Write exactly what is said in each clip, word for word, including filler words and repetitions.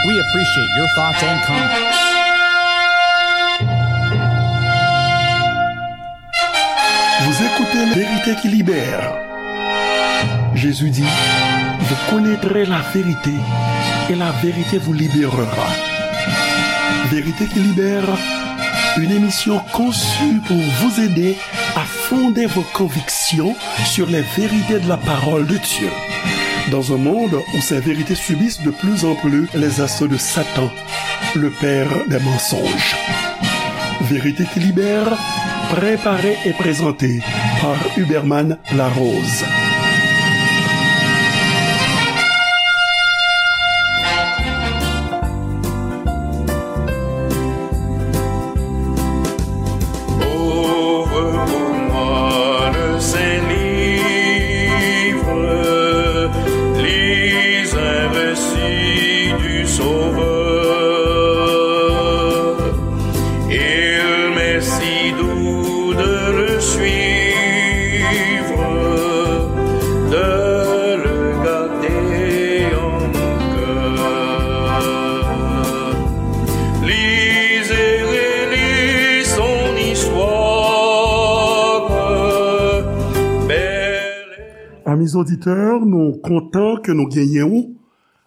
We appreciate your thoughts and comments. Vous écoutez La Vérité qui libère. Jésus dit, vous connaîtrez la vérité et la vérité vous libérera. Vérité qui libère, une émission conçue pour vous aider à fonder vos convictions sur les vérités de la parole de Dieu. Dans un monde où ces vérités subissent de plus en plus les assauts de Satan, le père des mensonges. Vérité qui libère, préparée et présentée par Huberman Larose. Ouvre pour moi le saint livre, lis un récit du Sauveur. Il m'est si doux de le suivre, de le garder en mon cœur. Lis et relis son histoire, belle. Amis auditeurs, nou kontan ke nou genyen ou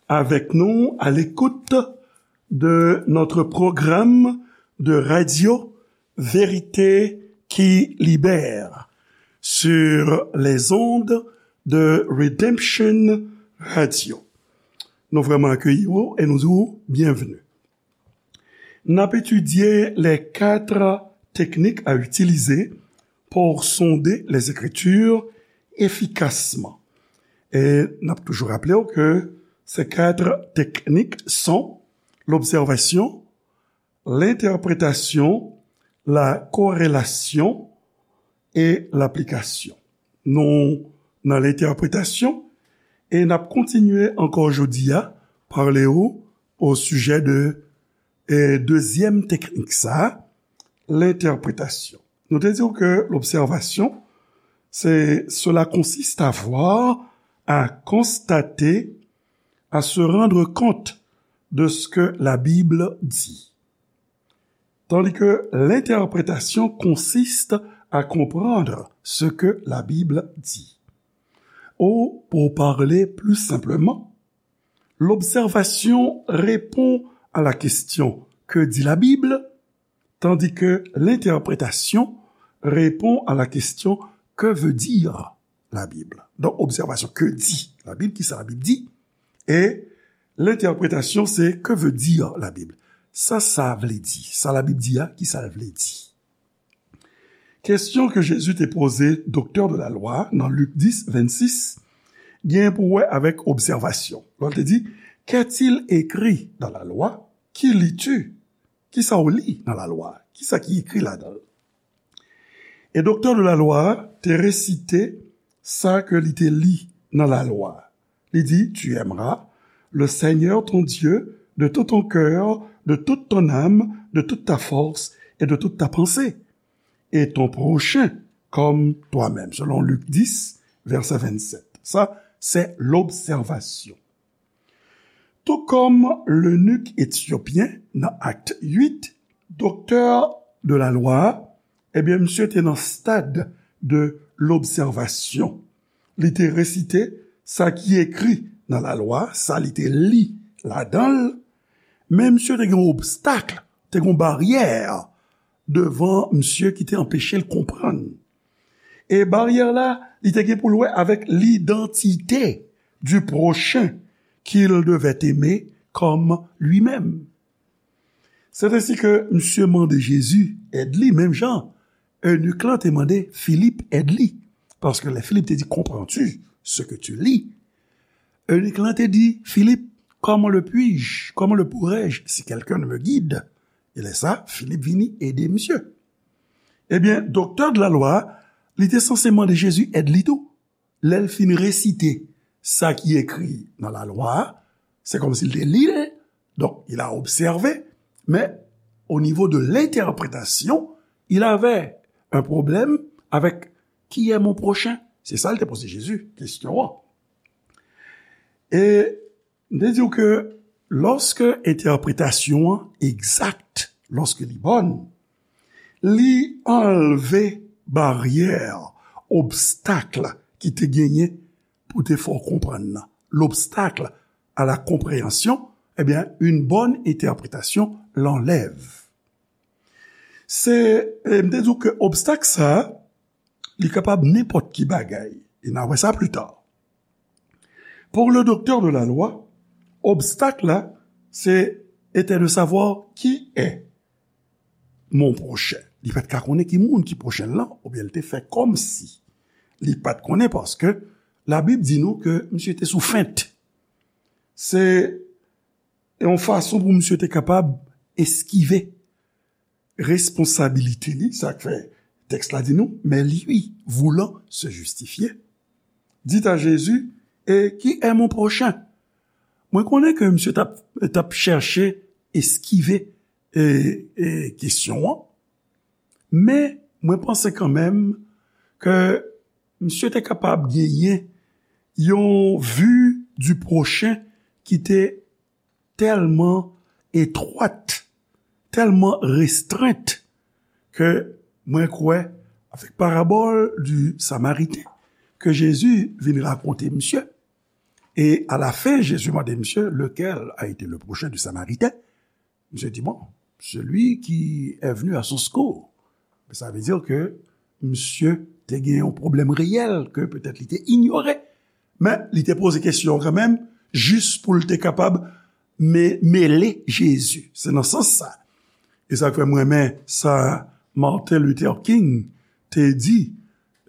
avec nous à l'écoute de notre programme de radio Vérité qui libère sur les ondes de Redemption Radio. Nou vrèman akeyi ou e nou di ou byenveni. N ap etidye les quatre techniques à utiliser pour sonder les Écritures efficacement. E n ap toujou raple w ke ces quatre techniques sont l'observation, l'interprétation, la corrélation et l'application. Nou nan lentèpretasyon e n ap kontinye ankò jodi a pale w o sijè de e dezyèm teknik sa, lentèpretasyon. Nou te di w ke l'observation, c'est, cela consiste à voir, à constater, à se rendre compte de ce que la Bible dit. Tandis que l'interprétation consiste à comprendre ce que la Bible dit. Ou, pour parler plus simplement, l'observation répond à la question que dit la Bible, tandis que l'interprétation répond à la question que veut dire la Bible. Donk, obsèvasyon, que dit la Bible, kisa Labib di, e lentèpretasyon, se que veut dire la Bible. Sa sa vle di, sa Labib di a, kisa l vle di. Kesyon ke Jezi te poze doktè de la lwa nan Lik dis, vennsis, gen pou wè avèk obsèvasyon. Lè l te di, qu'est-il écrit dans la loi? Ki lis-tu? Kisa w li nan lalwa? Kisa ki ekri ladan l? E doktè de la lwa a te resite sa ke li te li nan lalwa. Li di, tu aimeras le Seigneur ton Dieu de tout ton cœur, de toute ton âme, de toute ta force et de toute ta pensée, et ton prochain comme toi-même, selon Lik dis, vèsè vennsèt. Sa, se lobsèvasyon. Tou kòm lenik etyopyen nan Akt uit, doktè de la lwa a, ebyen, misye te nan stad de lobsèvasyon. Li te resite sa ki ekri nan lalwa, sa li te li ladan l, men misye te gen yon obstak, te gen yon baryè devan misye ki te anpeche l konprann. E baryè la, li te gen pou l wè avèk l'identité du prochain qu'il devait aimer comme lui-même. C'est ainsi que misye mande Jezi èd li, menm jan eunik lan te mande Filip èd li. Paske lè Filip te di, comprends-tu ce que tu lis? Eunik lan te di, Filip, comment le puis-je? Comment le pourrais-je si quelqu'un ne me guide? E lè sa, Filip vini ede misye. Ebyen, doktè de la lwa a, li te sanse mande Jezi èd li tou. Lè l fin resite sa ki ekri nan lalwa a, se kòmsi l te li l, donk, il a observé, mais au niveau de l'interprétation, il avait un problème avec qui est mon prochain? Se sa l te poze Jezi kesyon an. E m te di w ke Lòske entèpretasyon an egzak, lòske li bòn, li anlve baryè, obstak ki te genyen pou te fè w konprann nan. L'obstacle à la compréhension, eh bien, une bonne interprétation l'enlève. Se, e, m te di w ke obstak sa a, li kapab nenpòt ki bagay. E n a wè sa pli ta. Pour le docteur de la loi, obstak la, se était de savoir qui est mon prochain. Li pa t ka konnen ki moun ki pwochen l lan, oubyen li te fè kòmsi li pa t konnen, paske Labib di nou ke misye te sou fent. Se yon fason pou misye te kapab eskive responsabilite li, sa k fè tèks la di nou, mais lui, voulant se justifier, dit à Jésus, et qui est mon prochain? Mwen konnen ke misye t ap, t ap chèche eskive, e, e, kesyon an, men mwen panse kanmenm ke misye te kapab genyen yon vue du prochain ki te tèlman etwat, tèlman restrent, ke mwen kwè, avèk parabòl du Samariten ke Jezi vin rakonte misye, e a la fen, Jezi mande misye, lequel a été le prochain du Samaritain? Misye di, bon, celui qui est venu à son secours. Sa vle di ke misye te gen yon pwoblèm reyèl ke petèt li te inyore. Men, li te poze kesyon an kanmenm, jis pou l te kapab me-, mele Jezi. Se nan sans sa. E sa k fè m renmen sa Martin Luther King te di,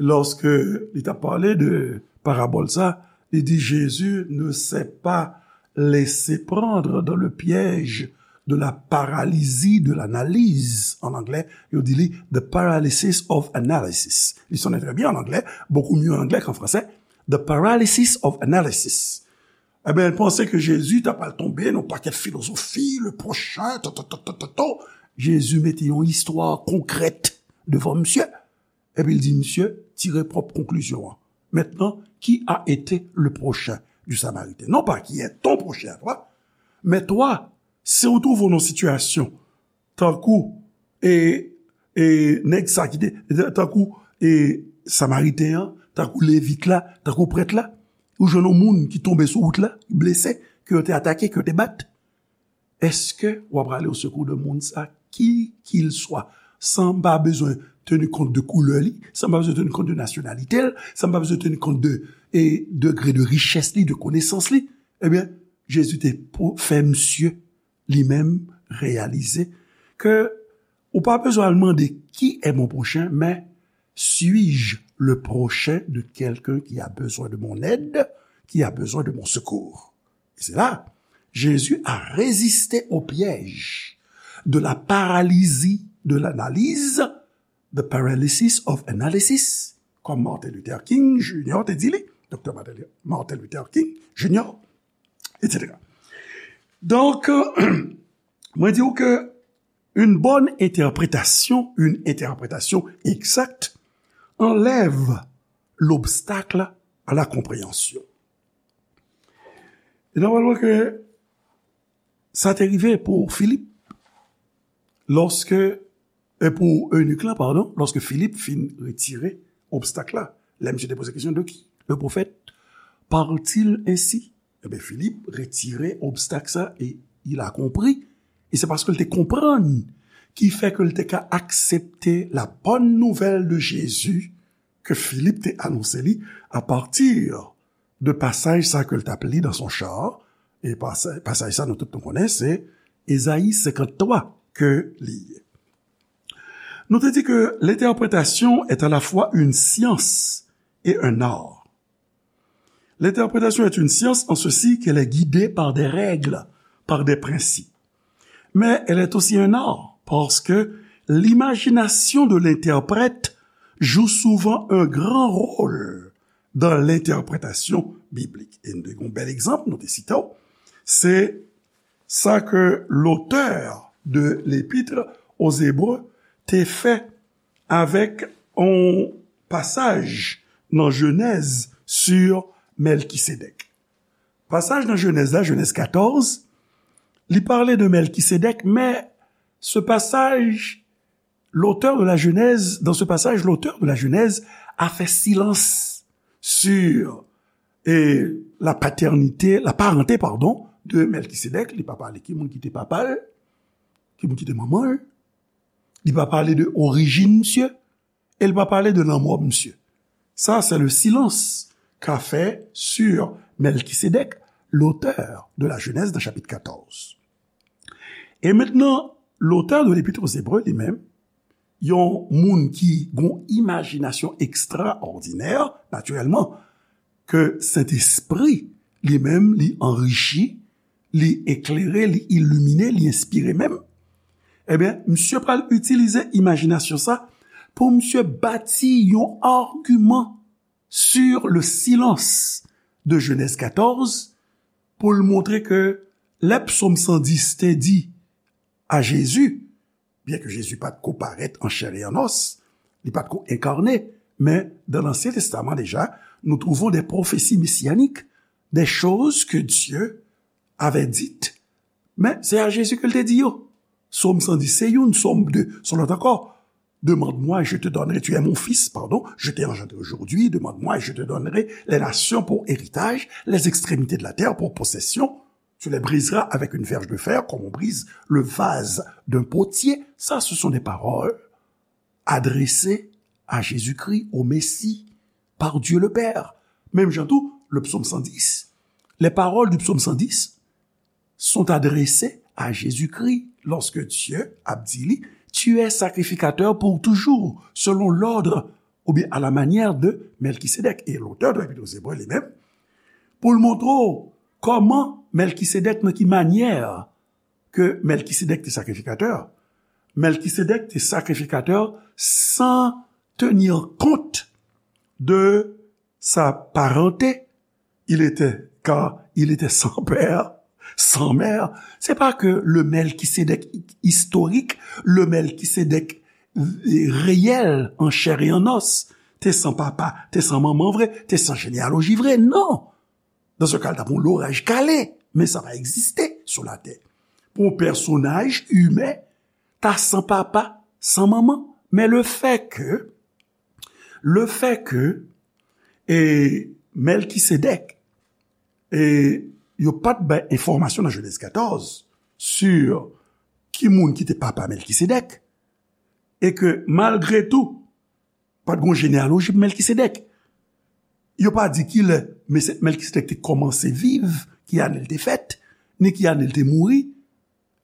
lòske li t ap pale de parabòl sa, li di, Jésus ne s'est pas laissé prendre dans le piège de la paralysie de l'analyse. An anglè, yo di li the paralysis of analysis. Li sonnen trè byen an anglè, beaucoup mieux en anglais qu'en français. The paralysis of analysis. Ebyen, l panse ke Jezi ta pral tonbe nan pakèt filozofi, le prochain, to, to, to, to, to, to. Jezi mete yon istwa konkrèt devan misye. Epi l di misye, tire pwòp konklizyon an. Maintenant, qui a été le prochain du Samaritain? Non pas qui est ton prochain à toi, mais toi, si w twouve w nan sitiyasyon tankou, e, e, nèg sa ki te, tankou, e, Samariten an, tankou Levit la, tankou prèt la, ou jwenn yon moun ki tonbe sou wout la, ki blese, ke yo te atake, ke yo te bat, èske w ap prale o sekou de moun sa, ki kil swa, san m pa bezwen teni kont de koulè li, san m pa bezwen teni kont de nasyonalite l, san m pa bezwen teni kont de, e, degre de richès li, de konesans li? Ebyen, Jezi te pou fè misye li menm reyalize ke ou pa bezwen al mande qui est mon prochain, mais suis-je le prochain de quelqu'un qui a besoin de mon aide, qui a besoin de mon secours? Et c'est là, Jésus a résisté au piège de la paralysie de l'analyse, the paralysis of analysis, kòm Martin Luther King Junior te di li, Doktè Martin, Martin Luther King Junior, et cetera. Donk, mwen di w ke une bonne interprétation, une interprétation exacte, enlève l'obstacle à la compréhension. E nòmalman ke sa te rive pou Filip, lòske, e pou enik la, padon, lòske Filip fin retire obstak la. Lè misye te poze kesyon, de qui le prophète parle-t-il ainsi? Ebyen, Filip retire obstak sa e il a compris. E se paske l te konprann ki fè ke l te ka aksepte la bonne nouvelle de Jésus ke Filip te anonse li apati de pasaj sa ke l t ap li dans son char. E pasa-, pasaj sa nou tout nou konnen, se Ezayi senkanntwa ke li ye. Nou te di ke l'interprétation est à la fois une science et un art. L'interprétation est une science en ceci qu'elle est guidée par des règles, par des principes. Mais elle est aussi un art, parce que l'imagination de l'interprète joue souvent un grand rôle dans l'interprétation biblique. E nou te gen yon bèl egzanp, nou te site w, se sa ke l'auteur de l'Épître aux Hébreux te fè avèk yon pasaj nan Jenèz sur Mèlkisedèk. Pasaj nan Jenèz la, Jenèz katòz, Li pale de Mèlkisedèk, men ce passage, l'auteur de la Genèse, dans ce passage, l'auteur de la Genèse a fait silence sur, eh, la paternité, la parenté, pardon, de Mèlkisedèk. Li pa pale ki moun ki te papa l, ki moun ki te manman l. Li pa pale de orijin misye. E l pa pale de lanmò misye. Ça, c'est le silence qu'a fait sur Melchisédek, l'auteur de la Genèse, dans chapitre quatorze. E mentnan, l'auteur de l'Épître aux Hébreux li menm, yon moun ki gon imajinasyon ekstraòdinè, natirèlman, ke Sentespri li menm li anrichi, li eklere, li ilimine, li enspire menm, ebyen, misye pral itilize imajinasyon sa pou misye bati yon agiman sur le silence de Genèse quatorze pou l montre ke lè Psaume cent dix te di a Jezi, byen ke Jezi pa t ko parèt an chè e an os, li pa t ko enkarne, men dans l'Ancien Testament déjà, nous trouvons des prophéties messianiques, des choses que Dieu avait dites. Men se a Jezi ke l te di yo. Sòm san dis se youn, Sòm de, se lòt ankò. Demande-moi et je te donnerai, tu es mon fils, pardon, je t'ai engendré aujourd'hui, demande-moi et je te donnerai les nations pour héritage, les extrémités de la terre pour possession. Tu les briseras avec une verge de fer, comme on brise le vase d'un potier. Ça, ce sont des paroles adressées à Jésus-Christ, au Messie, par Dieu le Père. Menm jan tou, le psaume cent dix, les paroles du psaume cent dix sont adressées à Jésus-Christ lorsque Dieu a dit, tu es sacrificateur pour toujours, selon l'ordre ou bien à la manière de Melchisédek. E lotè de Epître aux Hébreux li menm, pou l montre w kòman Melchisédek, nan ki manyè ke Melchisédek te sakrifikatè. Melchisédek te sakrifikatè sans tenir compte de sa parenté. Il était, car il était sans père, sans mère. C'est pas que le Melchisédek historique, le Melchisédek réel, en chair et en os, te san papa, te san manman vre, te san jeneyaloji vre. Non! Dans ce cas, l t ap yon loraj kale, men sa pa egziste sou latè. Pou yon pèsonaj imen, ta san papa, san manman. Men le fait que, le fait que, e, Melchisédek, e, yo pa t bay enfòmasyon nan Genèse quatorze sur ki moun ki te papa Melchisédek, e ke malgre tou, pa t gon jeneyaloji pou Melchisédek. Yo pa di kilè Mese-, Melchisédek te kòmanse viv, ki ane l te fèt, ni ki ane l te mouri.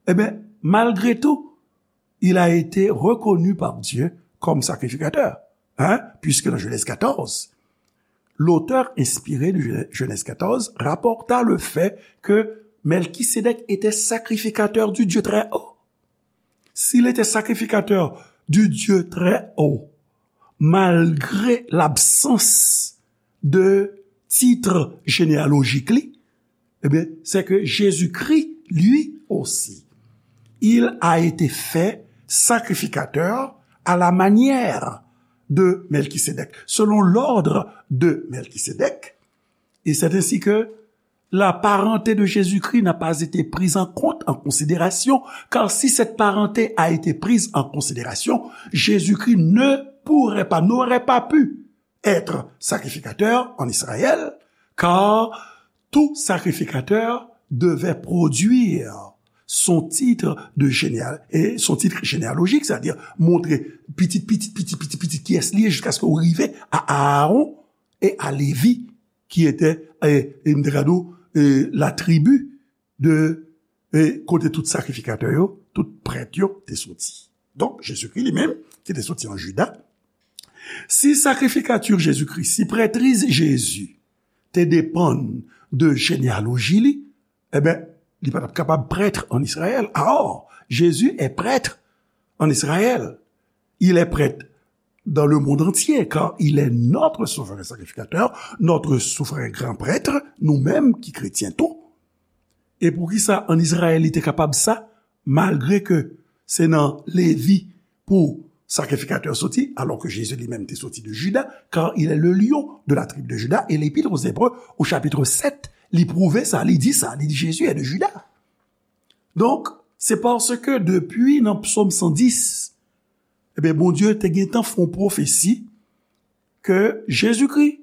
Ebyen, malgre tou, il a été reconnu par Dieu comme sacrificateur. Hein? Puisque dans Genèse quatorze, l'auteur inspiré de Genèse quatorze rapporta le fait que Melchisédek était sacrificateur du Dieu très haut. S'il était sacrificateur du Dieu très haut, malgré l'absence de titre généalogique li, eh bien, c'est que Jésus-Christ, lui aussi, il a été fait sacrificateur à la manière de Melchisédek, selon l'ordre de Melchisédek. Et c'est ainsi que la parenté de Jésus-Christ n'a pas été prise en compte, en considération, car si cette parenté a été prise en considération, Jésus-Christ ne pourrait pas, n'aurait pas pu être sacrificateur en Israël, car tout sacrificateur devait produire son titre de généal-, et son titre généalogique, c'est-à-dire montrer pitit, pitit, pitit, pitit, pitit, kiyès li ye, jiskaske ou rive a Aaron e a Levi, ki ete, e, e m te ka di w, e, la tribi de, e, kote tout sakrifikatè yo, tout prèt yo te soti. Donk, Jezikri li menm, ki te soti an Jida, si sacrificature Jésus-Christ, si prètriz Jezi te depann de jeneyaloji li, ebyen, li pa t ap kapab prêtre en Israël. Or, Jésus est prêtre en Israël. Il est prêtre dans le monde entier, car il est notre souverain sacrificateur, notre souverain grand prêtre, nou menm ki kretyen tou. E poukisa an Izrayèl li te kapab sa, malgre ke se nan Levi pou sakrifikatè soti, alors que Jésus lui-même te soti de Juda, car il est le lion de la tribu de Juda, et l'Épître aux Hébreux, au chapitre sept, li pwouve sa, li di sa, li di Jésus est de Juda. Donk, se paske depi nan Psòm san dis, ebyen, Bondye te gentan fè yon pwofesi ke Jezikri,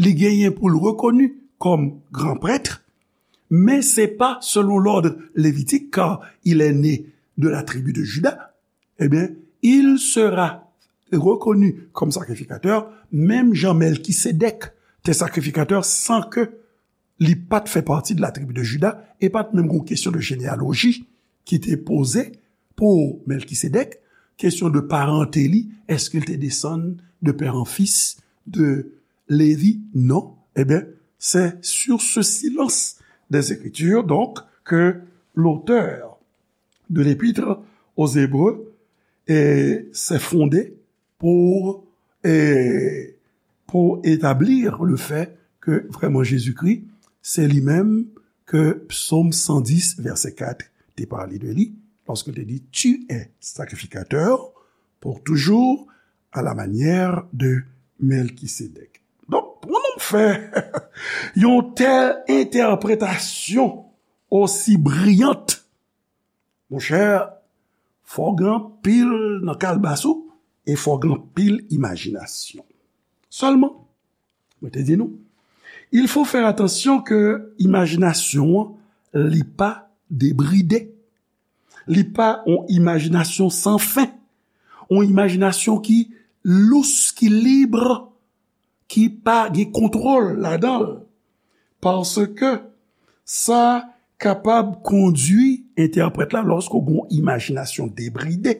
li genyen pou l rekoni kòm gran prèt, men se pa selon l'ordre lévitique, car il est né de la tribu de Juda, eh bien, il sera reconnu comme sacrificateur, menm jan Mèlkisedèk te sakrifikatè san ke li pa t fè pati de la tribi de Jida, e pa t menm gon kesyon de jeneyaloji ki te poze pou Mèlkisedèk, kesyon de parante li, èske l te desann de pè an fis de Levi? Non. Eh bien, c'est sur ce silence des Écritures, donc, que l'auteur de l'Épître aux Hébreux eh, s'est fondé pour, eh, pour établir le fait que vraiment Jésus-Christ, c'est lui-même que Psaume cent dix, verset quatre te parle de lui, lorsqu'il te dit, tu es sacrificateur pour toujours à la manière de Melchisédek. Donk, pou nou fè yon tèl entèpretasyon osi briyant, monchè, fò w gen anpil nan kalbas ou e fò w gen anpil imajinasyon. Sèlman, mwen te di nou, il faut faire attention ke imajinasyon an, li pa debride. Li pa yon imajinasyon san fen. Yon imajinasyon ki lous, ki lib, ki pa gen kontwòl ladan l. Paske sa kapab kondui entèprèt la, lòske w gen yon imajinasyon debride,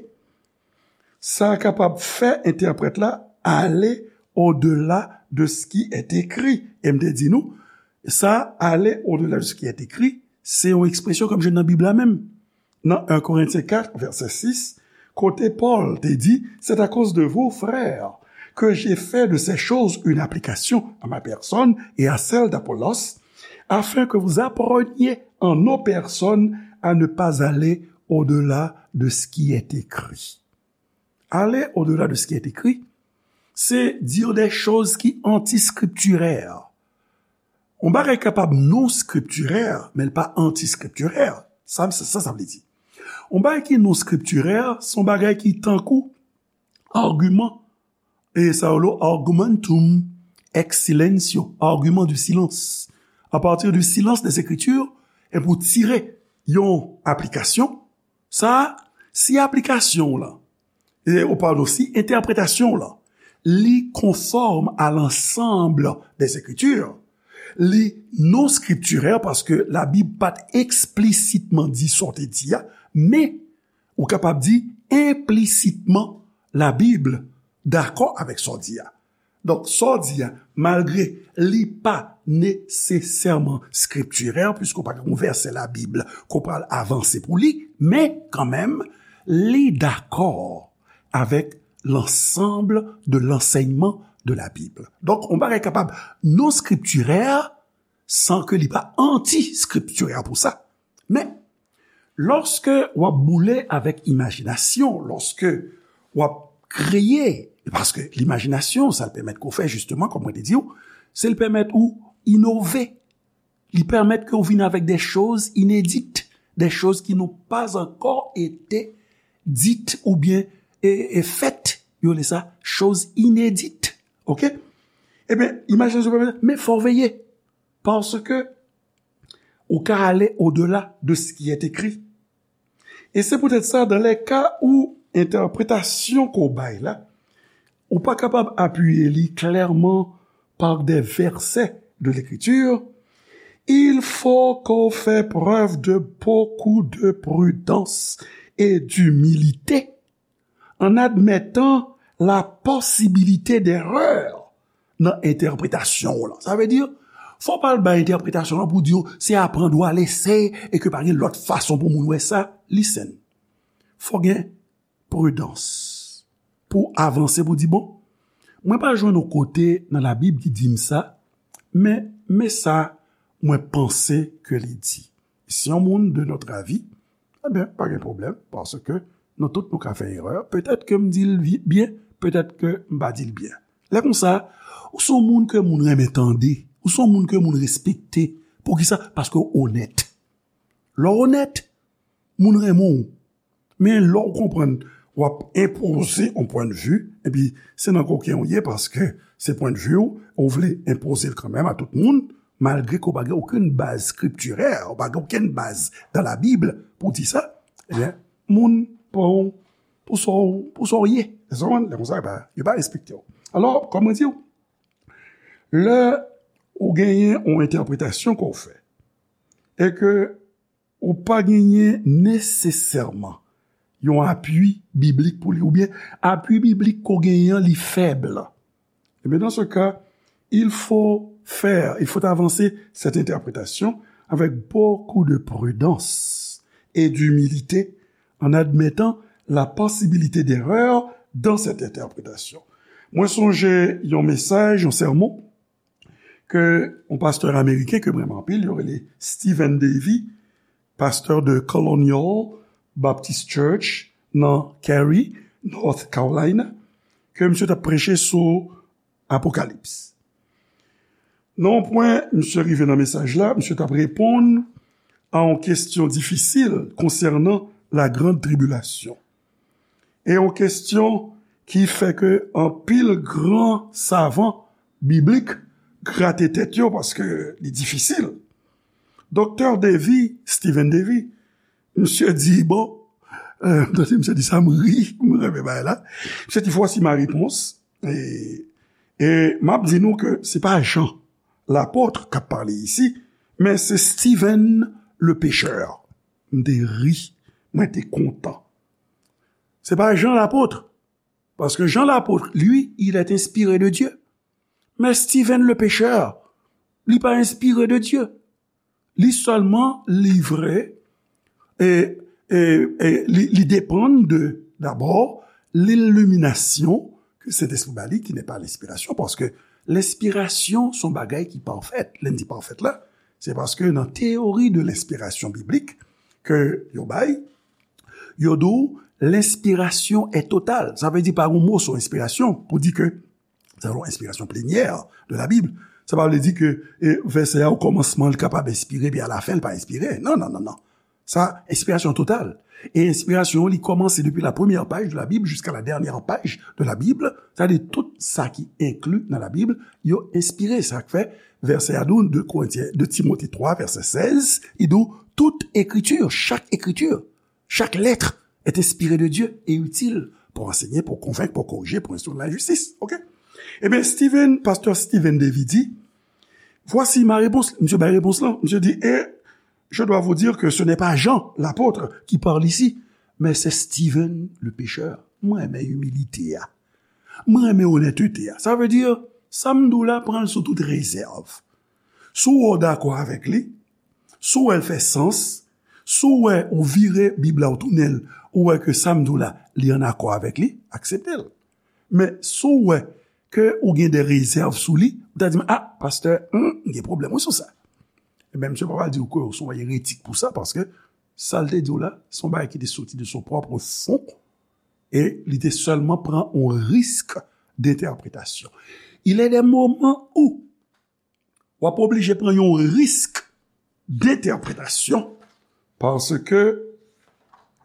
sa kapab fè entèprèt la ale au-delà de ce qui est écrit. E m te di nou, sa, aller au-delà de ce qui est écrit, se yon ekspresyon ke m jwenn nan Bib la menm. Nan un Corinthiens quatre, verset six, kote Pòl te di, c'est à cause de vous, frères, que j'ai fait de ces choses une application à ma personne et à celle d'Apollos, afin que vous appreniez en nos personnes à ne pas aller au-delà de ce qui est écrit. Aller au-delà de ce qui est écrit, c'est dire des choses qui anti-scripturaires. Yon bagay kapab non skriptirè, men l pa anti-skriptirè. Sa, sa, sa vle di. Yon bagay ki non skriptirè, se yon bagay ki tankou agiman, e sa yo lo argumentum ex silentio, argument du silence. À partir du silence des Écritures, e pou tire yon aplikasyon, sa, si aplikasyon w lan, e, ou padon, si entèpretasyon w lan, li konfòm à l'ensemble des Écritures, li non skriptirè paske Labib pa t eksplisitement di sa w te di a, men ou kapab di implicitement Labib dakò avèk sa w di a. Donk, sa w di a, malgre li pa nesesèman skriptirè, piske w pa gen yon vèsè Labib ke w pral avanse pou li, men kanmenm, li dakò avec l'ensemble de l'enseignement de la Bible. Donk, yon bagay kapab non skriptirè san ke li pa anti-skriptirè pou sa. Men, lòske w ap boule avèk imajinasyon, lòske w ap kreye, paske limajinasyon, sa l pèmèt ke w fè, jisteman, kòm mwen te di w, se l pèmèt ou inove. Li pèmèt ke w vin avèk des choses inédites, des choses qui n'ont pas encore été dites oubyen, e, e fèt, yo rele sa, choses inédites. Oke? Ebyen, imajinasyon pèmèt, men fò w veye, paske ou ka ale au-delà de ce qui est écrit. E se poutèt sa, dans les cas où entèpretasyon ke w bay la, ou pa kapab apiye li klèman par des versets de l'Écriture, il faut qu'on fait preuve de beaucoup de prudence et d'humilité en admettant la possibilité d'erreur nan entèpretasyon w lan. Sa vle di, fò w pa al bay entèpretasyon w lan pou di w se apprendre ou à l'essai e ke pa gen lòt fason pou moun wè sa. Listen. Fò gen pridans pou avanse, pou di, bon, mwen pa jwenn yon kote nan Labib ki di m sa, men, men sa mwen panse ke li di. Si yon moun de notre avis, ebyen, pa gen pwoblèm, paske nou tout nou ka fè erè. Petèt ke m di l vi-, byen, petèt ke m pa di l byen. Lè konsa, ou se yon moun ke moun renmen tande, ou se yon moun ke moun respekte. Poukisa? Paske w onèt. Lè w onèt, moun renmen w. Men lè w konprann w ap enpoze yon pwennvi, epi se nan koken w ye paske se pwennvi w, ou vle enpoze l kanmenm a tout moun, malgre ke w pa gen okenn baz skriptirè, ou pa gen okenn baz dans la Bible pou di sa, ebyen, moun pran w pou sa w, pou sa w ye. Èske w konprann? Lè konsa, yo pa, yo pa respekte w. Alò, kòm mwen di w, lè ou genyen yon entèpretasyon ke w fè, e ke ou pa genyen nesesèman yon apui biblik pou li, oubyen apui biblik ke w genyen an, li fèb. Eh bien, dans ce cas, il faut faire, il faut avancer cette interprétation avec beaucoup de prudence et d'humilité, en admettant la possibilité d'erreur dans cette interprétation. Mwen sonje yon mesaj, yon sèmon, ke yon pastè ameriken ke m renmen anpil, yo rele Stephen Davey, pastè de Colonial Baptist Church nan Cary, North Carolina, ke misye t ap preche sou Apokalips. Nan yon pwen, misye rive nan mesaj la, misye t ap reponn a yon kesyon difisil konsènan la grande tribulation. E yon kesyon ki fè ke anpil gran savan biblik grate tèt yo paske li difisil. Doktè Davey, Stephen Davey, misye di, bon, euh, tande misye di sa, m ri, m renmen bagay la. Misye di, voici ma réponse. E, e m ap di nou ke se pa Jan lapot k ap pale isi, men se Stephen le pécheur. M te ri, mwen te kontan. Se pa Jan lapot, paske Jan lapot, lui, il est inspiré de Dieu. Men Stephen le pécheur, li pa enspire de Dye. Li sèlman livre, e, e, e li, li depann de, dabò, liliminasyon ke Sentespri ba li, ki n'est pas l'inspiration, paske lenspirasyon se yon bagay ki pafèt. Lè n di pafèt la, se paske nan teyori de lenspirasyon biblik ke yo bay, yo di w lenspirasyon est totale. Sa vle di pa gen yon mo sou enspirasyon pou di ke se yon enspirasyon plenyè de la Bib. Sa pa vle di ke, e, vèsè a, okòmansman, li kapab enspire, epi alafen, li pa enspire. Non, non, non, non. Sa, enspirasyon total. E enspirasyon, li kòmanse depi la première page de la Bible jusqu'à la dernière page de la Bible. Sa vle di tout sa ki enkli nan la Bib, yo enspire. Sa k fè vèsè a di w, de Korentyen, de Timote twa, vèsè sèz, li di w, toute écriture, chaque écriture, chaque lettre est inspirée de Dieu et utile pour enseigner, pour convaincre, pour corriger, pour instruire dans la justice. OK? Ebyen, Stephen, pastè Stephen Davey di, voici ma réponse. Misye bay repons lan. Misye di, et je dois vous dire que ce n'est pas Jean, l'apôtre, qui parle ici, mais c'est Stephen, le pécheur. Mwen renmen imilite a. Mwen renmen onètete a. Sa vle di, sa m di w la, pran l sou tout rezèv. Si w wè w dakò avèk li, si w wè l fè sans, si w wè ou vire Bib la, ou tounen l, ou wè ke sa m di w la, li ann akò avèk li, aksepte l. Men si w wè ke ou gen de rezèv sou li, ou ta di m, a, pastè, hmm, m gen pwoblèm wi sou sa. Ebyen, misye pa pral di w ke w se yon eretik pou sa, paske sa l te di w la, se yon bagay ki te soti de son pwòp fon, e li te sèlman pran yon risk d'entèpretasyon. Il est des moments où w ap oblije pran yon risk d'entèpretasyon, paske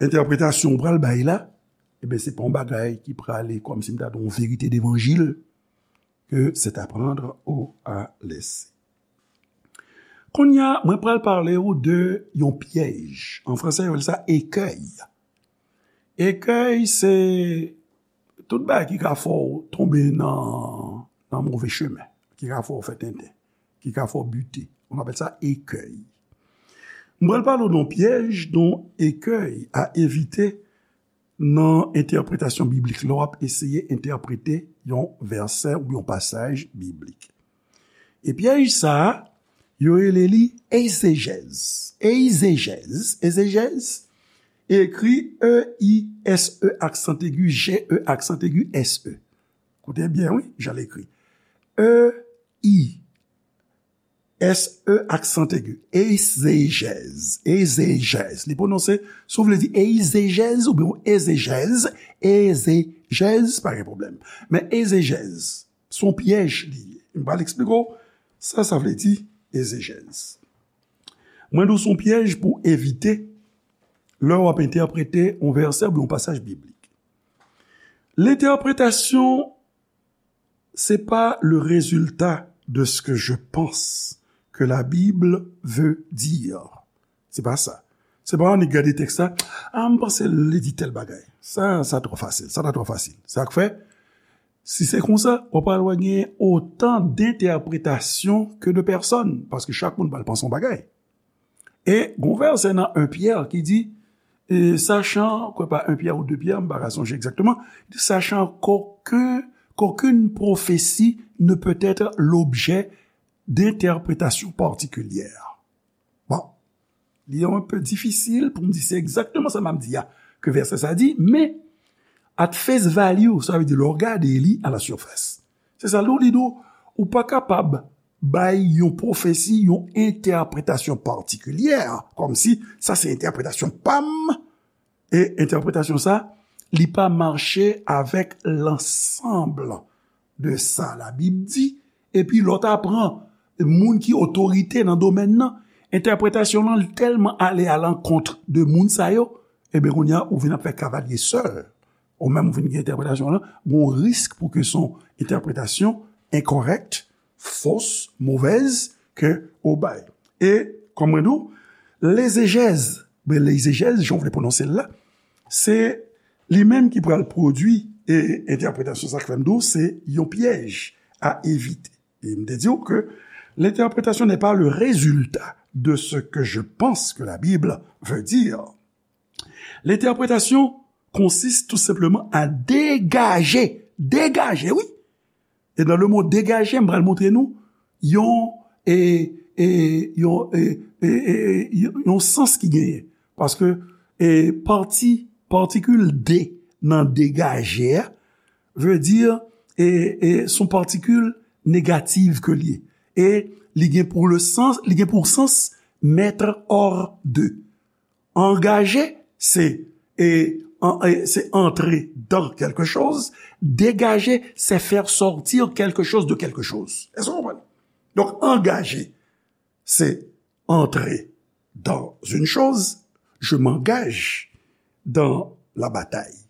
entèpretasyon ou pral bay la, ebyen, se pa yon bagay ki prale kòmsi m ta di yon verite devanjil, que c'est à prendre ou à laisser. Kounye a, mwen pral pale w de yon pyèj. An fransè, yo rele sa écueil. Écueil, se tout bagay ki ka fè w tonbe nan, nan move chemen, ki ka fè w fè tenten, ki ka fè w bite. On appelle ça écueil. Mwen pral pale w de yon pyèj, de yon écueil à éviter nan entèpretasyon biblik, lè w ap eseye entèprete yon vèsè oubyen yon pasaj biblik. E pyèj sa a, yo rele li egzejèz. Egzejèz, egzejèz, ekri E I S E aksan egi, J E aksan egi, S E. Koute byen, wi, jan l ekri. E I S E aksan egi. Egzejèz. Egzejèz. Li pwononse, si w vle di egzejèz oubyen egzejèz, egzejèz, pa gen pwoblèm. Men egzejèz, se yon pyèj li ye. M pral eksplike w sa sa vle di, egzejèz. Mwen di w se yon pyèj pou evite Lè w ap entèprete yon vèsè oubyen yon pasaj biblik. L'interprétation, c'est pas le résultat de ce que je pense que la Bible veut dire. Se pa sa. Se pa annik gade tèks la, a, m panse li di tèl bagay. Sa, sa twò fasil. Sa ta twò fasil. Sa k fè, si se konsa, w pral wè gen otan d'entèpretasyon ke de pèsòn, paske chak moun pral panse yon bagay. E gon vèsè nan en Pyè ki di, e, sachant, kwè pa en Pyè ou de Pyè, m pa ka sonje egzakteman, sachant qu'aucun, qu'aucune prophétie ne peut être l'objet d'interprétations particulières. Bon, li yon pe difisil pou m di se egzakteman sa m ap di a ke vèsè sa di, men at face value, sa vle di lè w gade li à la surface. Se sa, lè w li nou, ou pa kapab bay yon pwofesi, yon entèpretasyon patikilyè, kòmsi sa se entèpretasyon pa m, e entèpretasyon sa, li pa mache avèk lansanb de sa Labib di, epi lè w ta pran moun ki otorite nan domèn nan, entèpretasyon lan tèlman ale alankont de moun sa yo, ebyen, kounye a, ou vin ap fè kavalye sèl. Ou menm, ou vin gen entèpretasyon lan, gon risk pou ke se yon entèpretasyon enkòrèk, fos, movèz, ke ou bay. E, kòm mwen di w, lezejèz, ben, lezejèz, jan w vle pwononse l la, se li menm ki pral pwodui, e entèpretasyon sa k fè m di w, se yon pyèj a evite. E m te di w ke l'interprétation n'est pas le résultat de ce que je pense que la Bible veut dire. L'interprétation consiste tout simplement à dégager, dégager, wi. E nan le mo degaje, m pral montre nou yon, e, e, yon, e, e, e, e, yon, yon sans ki genyen. Paske, e, pati, patikil de nan degaje a, vle di, e, e, se yon patikil negatif ke li ye. E li gen pou le sans, li gen pou sans mettre hors de. Angaje, se, e, an, e, se entrer dans quelque chose. Dégager, c'est faire sortir quelque chose de quelque chose. Èske w konprann? Donk, angaje, se entrer dans une chose. Je m'engage dans la bataille.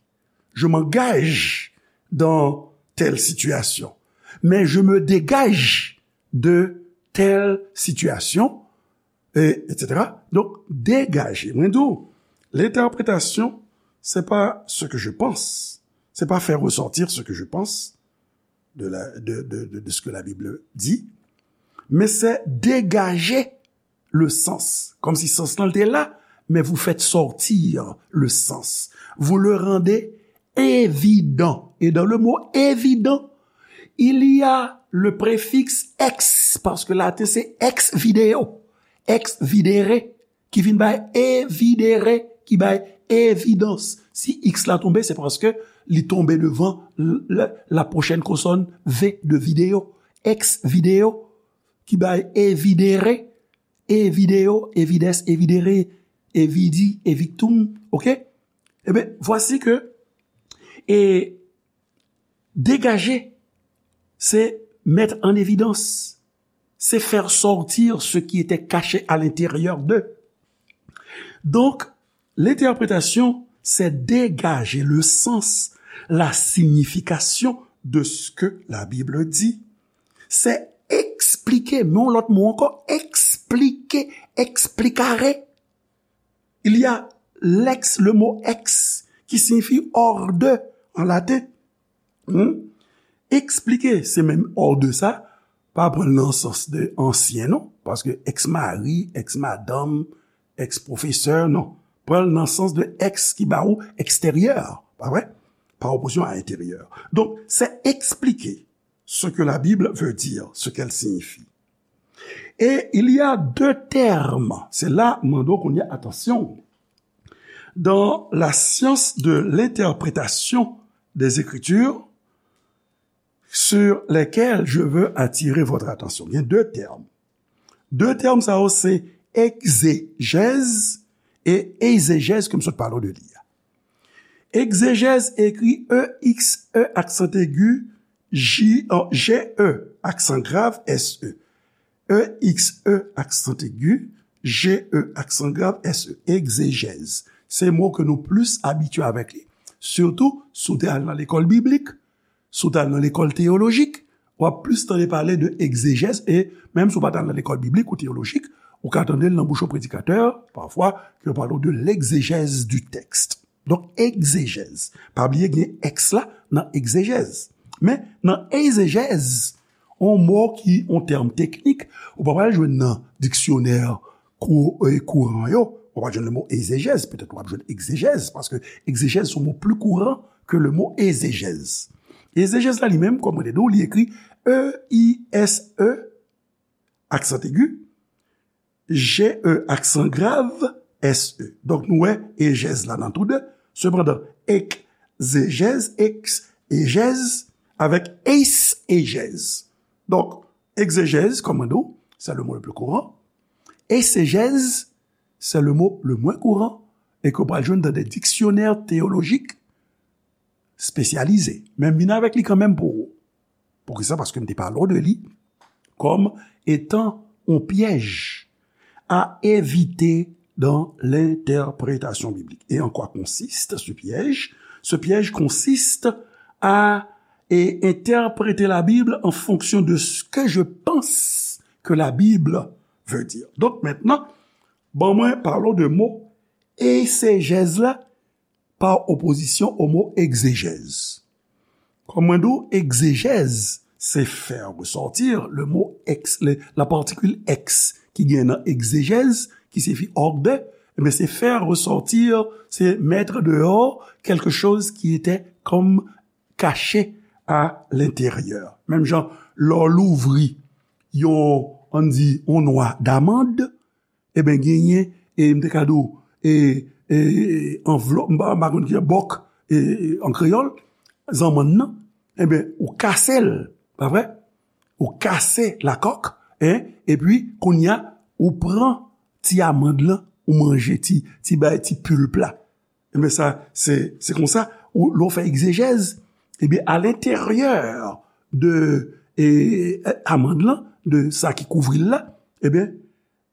Je m'engage dans telle situation. Mais je me dégage de telle situation, et, et cetera. Donk, degaje. Mwen di w, l'interprétation, c'est pas ce que je pense. C'est pas faire ressortir ce que je pense de la, de, de, de, de ce que la Bible dit, mais c'est dégager le sens. Kòmsi sans lan te la, mais vous faites sortir le sens. Vous le rendez évident. Et dans le mot évident, il y a le préfixe ex, paske laten se ex video, ex videre, ki vin bay evidere, ki bay evidans. Si x la tonbe, se paske li tonbe devan l-, la, la pwochèn konsòn V de video. Ex video, ki bay evidere, evideo, evides, evidere, evidi, evictum, oke? Ebyen, vwasi ke, e, degaje, se mettre en évidence, c'est faire sortir ce qui était caché à l'intérieur d'eux. Donc, l'interprétation, c'est dégager le sens, la signification de ce que la Bible dit. C'est expliquer, men yon lòt mo ankò, expliquer, explicare. Il y a l'ex, le mot ex, qui signifie hors de en latin. Hmm? Eksplike, se menm hors de sa, pa pran l nan sans de ansyen, non, paske ex mari, ex madanm, ex pwofesè, non. Pran l nan sans de ex ki ba ou extérieur, pa vre? Par opposition à intérieur. Donc, c'est expliquer ce que la Bible veut dire, ce qu'elle signifie. Et il y a deux termes. Se la, m mande w kounye a, atansyon. Dans la science de l'interprétation des Écritures, sur lesquels je veux attirer votre attention. Il y a deux termes. De tèm sa yo se egzejèz e ezejèz ke m sot pale w de li a. Egzejèz ekri E X E aksan egi, J, G E aksan grav S E. E X E aksan egi, G E aksan grav S E. Egzejèz. Se mo ke nou plis abitye avèk li. Sitou, si w te al nan lekòl biblik, si w te al nan lekòl teyolojik, w ap plis tande pale de egzejèz, e menm si w pa t al nan lekòl biblik ou teyolojik, ou ka tande l nan bouch yon predikatè, pafwa, ke yo pale w de l'exégèse du texte. Donk, egzejèz. Pa bliye gen ex la nan egzejèz. Men, nan egzejèz, yon mo ki yon tèm teknik, ou pa pral jwenn nan diksyonè kou-, e, kouran yo, ou pa jwenn le mo egzejèz, petèt ou ap jwenn egzejèz, paske egzejèz se yon mo pli kouran ke le mo egzejèz. Egzejèz la li menm, kòm mwen te di w, li ekri E I S E, aksan egi, G E, aksan grav, S E. Donk, nou wè ejèz la nan tou de. Sepandan, egzejèz, ex, ejèz, avèk eis, ejèz. Donk, egzejèz, kòm mwen di w, c'est le mot le plus courant. Eisejèz, c'est le mot le moins courant, e ke w pral jwenn dans des dictionnaires théologiques spécialisés. Men m vin avèk li kanmenm pou ou. Poukisa? Paske m te pale w de li comme étant un piège à éviter dans l'interprétation biblique. Et en quoi consiste ce piège? Ce piège consiste à, et, interpréter la Bible en fonction de ce que je pense que la Bible veut dire. Donk, mentnan, ban mwen pale w de mo eisejèz la pa opozisyon o mo egzejèz. Kòm mwen di w, egzejèz, c'est faire ressortir le mot ex, le, la particule ex ki gen nan egzejèz, ki siyifi hors de, men c'est faire ressortir, c'est mettre dehors quelque chose qui était comme caché à l'intérieur. Menm jan, lè w louvri yon, ann di, yon nwa damand, Eben, genyen, e, m te ka di w, e, e, anvlòp, m pa, m pa konn ki bòk, e, e, an kreyòl, zanmann nan, eben, ou kase l, pa vre? Ou kase lakòk, en, epi, kounye a, ou pran ti amand lan, ou manje ti, ti bay, ti pulp la. Eben, sa, se, se konsa, ou, lè w fè egzejèz, eben, à l'intérieur de, e, amand lan, de sa ki kouvri l la, eben,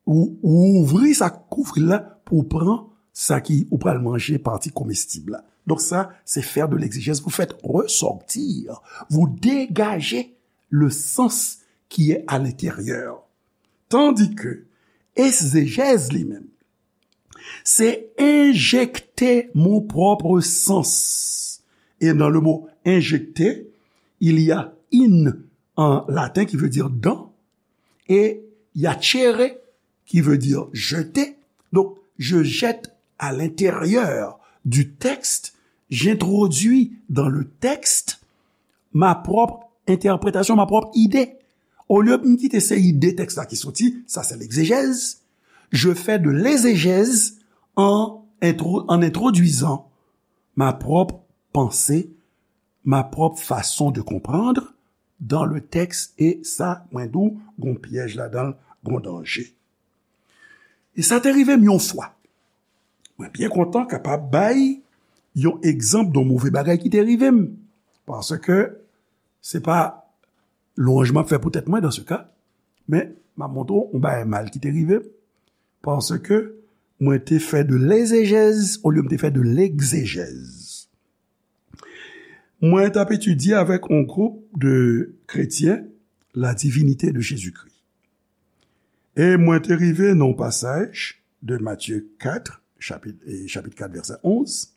ou, ou ouvri sa k kouvri l la pou w pran sa ki ou pral manje, pati komestib la. Donk sa, se faire de l'exégèse. Vous faites ressortir, vous dégagez le sens qui est à l'intérieur. Tandis que egzejèz li menm, se injecter mon propre sens. Et dans le mot injecter, il y a in en latin qui veut dire dans, et il y a cere qui veut dire jeter. Donc, je jette à l'intérieur du texte, j'introduis dans le texte ma propre interprétation, ma propre idée. Olye m kite se ide tèks la ki soti, sa se l'exégèse, je fais de l'exégèse en intro-, en introduisant ma propre pensée, ma propre façon de comprendre dans le texte, e sa, mwen di w, gon pyèj ladan l, gon danje. E sa te rive m yon fwa. Mwen byen kontan kapab bay yon egzanp de yon move bagay ki te rive m. Paske se pa lwanj m ap fè pou tèt mwen dans ce cas, men m ap montre w yon bagay mal ki te rive m. Paske mwen te fè de l'exégèse olye m te fè de l'exégèse. Mwen t ap etidye avèk yon gwoup de kretyen la divinite de Jezikri. E mwen te rive nan yon pasaj de Matye kat, chapit, e, chapit kat, vèsè onz,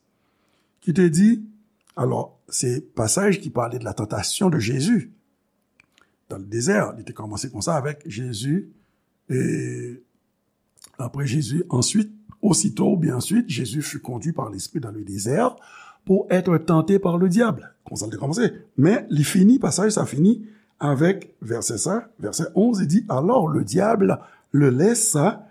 ki te di, alò, se pasaj ki pale de la tentation de Jésus dans le désert. Li te kòmanse konsa avèk Jezi, e, après Jésus, ensuite, aussitôt, ou bien ensuite, Jésus fut conduit par l'Esprit dans le désert pour être tenté par le diable. Konsa l te kòmanse. Men li fini, pasaj sa fini avèk vèsè sa, vèsè onz, li di, alors le diable le laissa,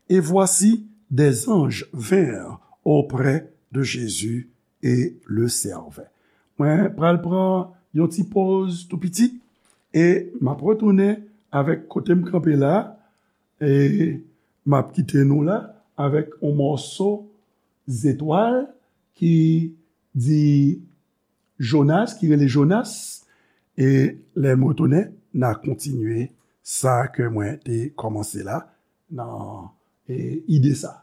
et voici, des anges vinrent auprès de Jésus et le servaient. Mwen pral pran yon ti poz tou piti, e m ap retounen avèk kote m kanpe la, e m ap kite nou la avèk yon mòso zetwal ki di Jonas, ki rele Jonas, e lè m retounen, n a kontinye sa ke mwen te kòmanse la nan, e, ide sa.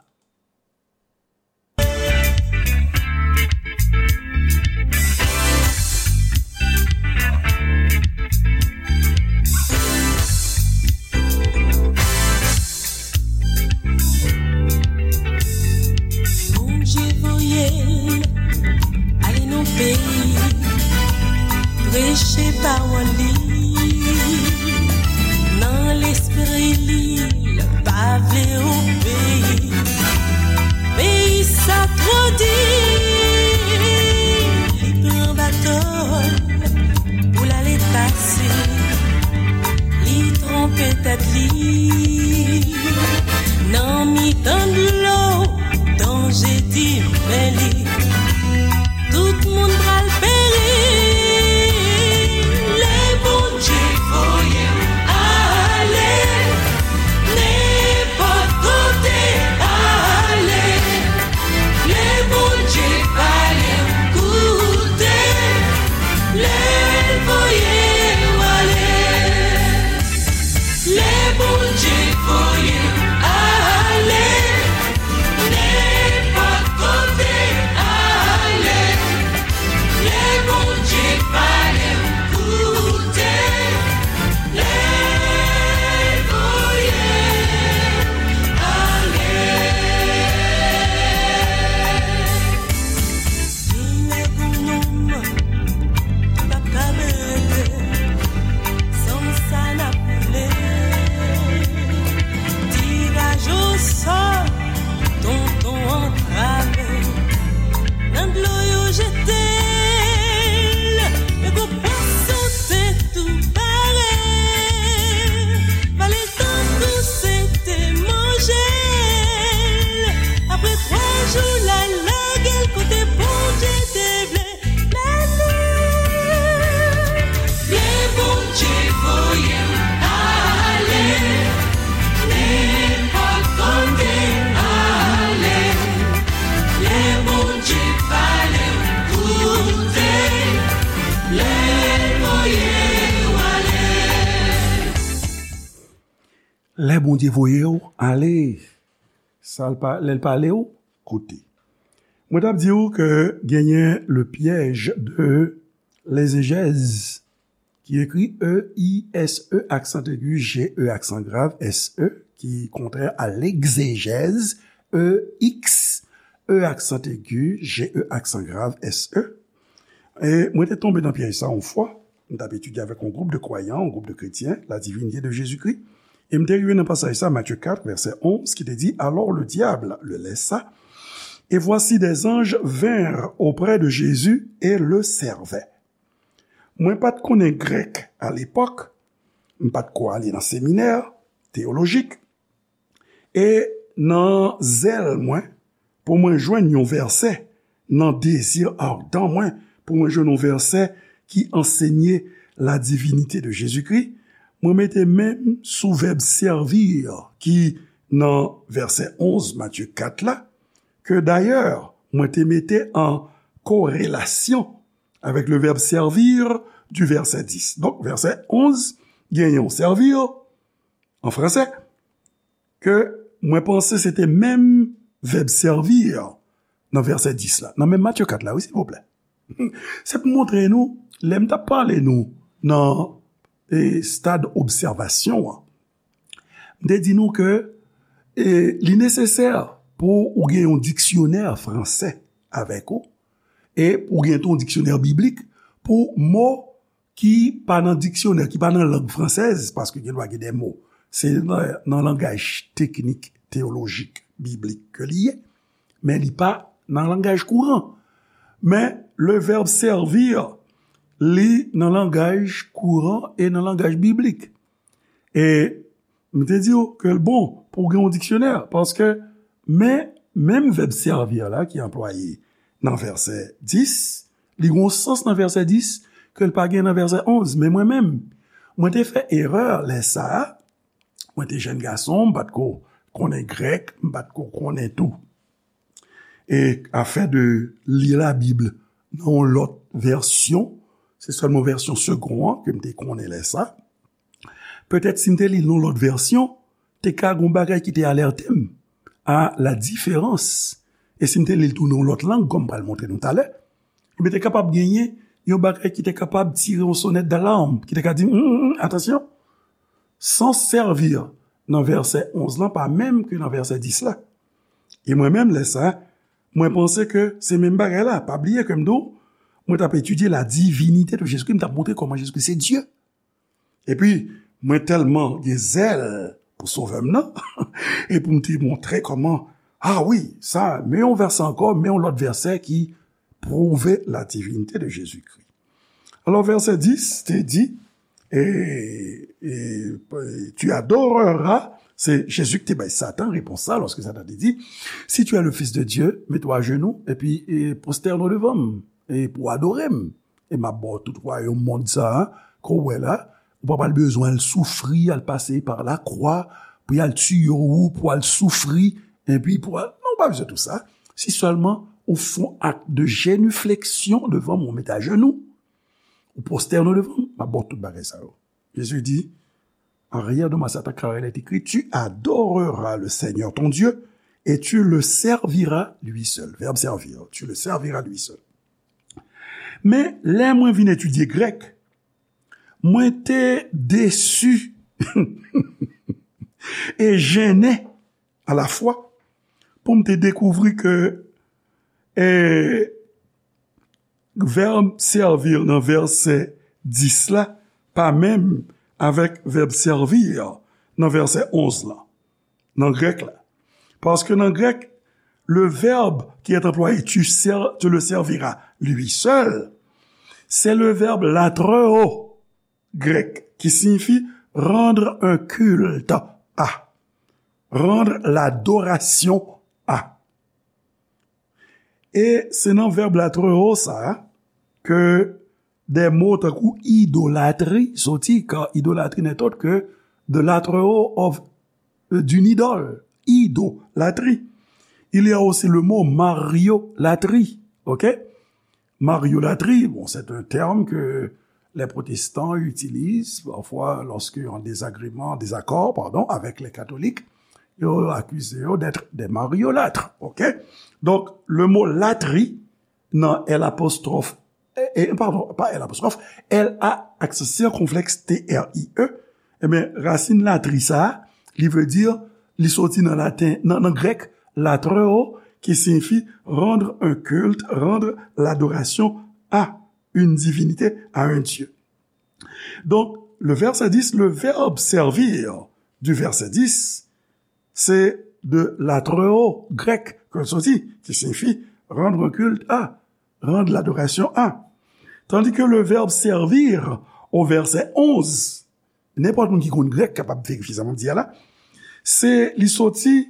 Pawòl li, nan lespri li, l pa vle obeyi. Peyi sa twò di, li pran bato l pou l ale pase. Li twonpe tèt li nan mitan dlo, danje di men li. Tout moun pral peri. Lè Bondye voye m ale, nenpòt kote ale. Lè Bondye pale m koute, lè l voye w ale. Lè Bondye voye m ale, nenpòt kote ale. Lè Bondye pale m koute, lè l voye m ale. Vin nèg ou nonm, pa ka berete, san sa n ap koule. Tiraj osò, tonton antrave. Nan dlo yo jete l, men gwo pwason te tou pare. Vale l tankou se te manje l. Apre twa jou, l al lage l kote Bondye te vle mennen l. Lè Bondye voye m ale, nenpòt kote ale. Lè Bondye pale m koute, lè l voye w ale. Lè Bondye voye w ale, sa l pa, lè l pale w, koute. Mwen t ap di w ke genyen le piège de l'exégèse, ki ekri E I S E aksan egi, G E aksan grav, S E, ki kontrè a l'exégèse, E X E aksan egi, G E aksan grav, S E. E mwen te tonbe nan pyèj sa yon fwa. M t ap etidye avèk yon gwoup de kwayan, yon gwoup de kretyen, la divinité de Jésus-Christ. E m te rive nan pasaj sa, Matthieu quatre, verset onze, ki te di, Alors le diable le laissa, et voici des anges vinrent auprès de Jésus et le servaient. Mwen pa t konnen grèk alepòk, m pa t ko ale nan seminè teyolojik, e nan zèl mwen pou mwen jwenn yon vèsè, nan dezi adan mwen pou mwen jwenn yon vèsè ki ansenye la divinite de Jezikri, mwen mete men m sou vèb servir ki nan vèsè onz Matye kat la, ke dayè mwen te mete an korelasyon avèk le vèb servir du vèsè dis. Donk, vèsè onz gen yon servir an fransè, ke mwen panse se te menm vèb servir nan vèsè dis la, nan menm Matye kat la, wi, silvouplè. Se pou montre nou, lè m t ap pale nou nan, e, stad obsèvasyon an, m te di nou ke, e, li nesesè pou ou gen yon diksyonè fransè avèk ou, e pou ou gen tou yon diksyonè biblik pou mo ki pa nan diksyonè, ki pa nan lang fransèz, paske gen dwa gen de mo, se nan, nan langaj teknik, teyolojik, biblik ke li ye, men li pa nan langaj kouran. Men, le vèb servir, li nan langaj kouran e nan langaj biblik. E m te di w ke l bon pou w gen yon diksyonè, paske men, menm vèb servir la ki anplwaye nan vèsè dis, li gen yon sans nan vèsè dis ke l pa gen nan vèsè onz. Men mwen menm, mwen te fè erè lè sa a, mwen te jèn gason, m pa t ko konnen grèk, m pa t ko konnen tou. E afè de li Labib nan yon lòt vèsyon, se sèlman vèsyon Segond an ke m te konnen lè sa. Petèt si m te li l nan yon lòt vèsyon, te ka gen yon bagay ki te alète m a la diferans. E si m te li l tou nan yon lòt lang, kòm m pral montre nou talè, ebyen te kapab genyen yon bagay ki te kapab tire yon sonèt dalam, ki te ka di, "Hum, hum, hum, atansyon!" Sans servir nan vèsè onz lan pa menm ke nan vèsè dis la. E mwen menm, lè sa, mwen panse ke se menm bagay la. Pa bliye ke m di w, mwen t ap etidye la divinite de Jezikri, m t ap montre kòman Jezikri se Dye. Epi, mwen tèlman gen zèl pou Sovè m nan, e pou m te montre kòman, a wi, sa, men yon vèsè ankò, men yon lòt vèsè ki pwouve la divinite de Jezikri. Alò, vèsè dis te di, e, e, tu adoreras, se Jezi ki te bay Satan repons sa, lòske Satan te di, si tu es le Fils de Dieu, mets-toi à genoux, epi, e, prosterne devant m, e pou adore m. E m ap ba w tout wayòm mond sa a, ke w wè la, ou pa pral bezwen al soufri, al pase pa lakwa, pou y al tiye w, pou al soufri, epi pou al, non, ou pa bezwen tou sa. Si sèlman ou fè yon ak de jenifleksyon devan mwen, ou mete ajenou, ou pwostène devan m, m ap ba w tout bagay sa yo. Jezi di, en rien de ma Satan, car il est écrit, tu adoreras le Seigneur ton Dieu et tu le serviras lui seul. Vèb servir, tu le serviras lui seul. Men, lè mwen vin etidye grèk, mwen te desi e jennen alafwa pou m te dekouvri ke, e, vèb servir nan vèsè dis la pa menm avèk vèb servir nan vèsè onz la, nan grèk la. Paske nan grèk, le verbe qui est employé, tu ser-, tu le serviras lui seul, c'est le verbe latreuo grèk qui signifie rendre un culte à, rendre l'adoration à. E se nan vèb latreuo sa a ke de mo tankou idolatri soti, car idolâtrie n'est autre que de l'atreuo of, d'une idole, idolatrie. Il y a aussi le mot mariolatrie, ok? Mariolatrie, bon, c'est un terme que les protestants utilisent parfois lorsqu'ils ont un désagrément, désaccord, pardon, avec les catholiques. Ils accusent d'être des mariolâtres, ok? Donc, le mot latri, nan L apostwòf, e, e, padon, pa L apostwòf, L A aksan sikonflèks T R I E, ebyen, rasin latri sa a, li vle di, li soti nan laten, nan, nan grèk, latreuo, qui signifie rendre un culte, rendre l'adoration à une divinité, à un Dieu. Donc, le verset dix, le verbe servir du verset dix, c'est de latreuo grèk ke l soti, qui signifie rendre un culte à, rendre l'adoration à. Tandis que le verbe servir au verset onze, nenpòt moun ki konn grèk kapab verifye sa m ap di a la, se, li soti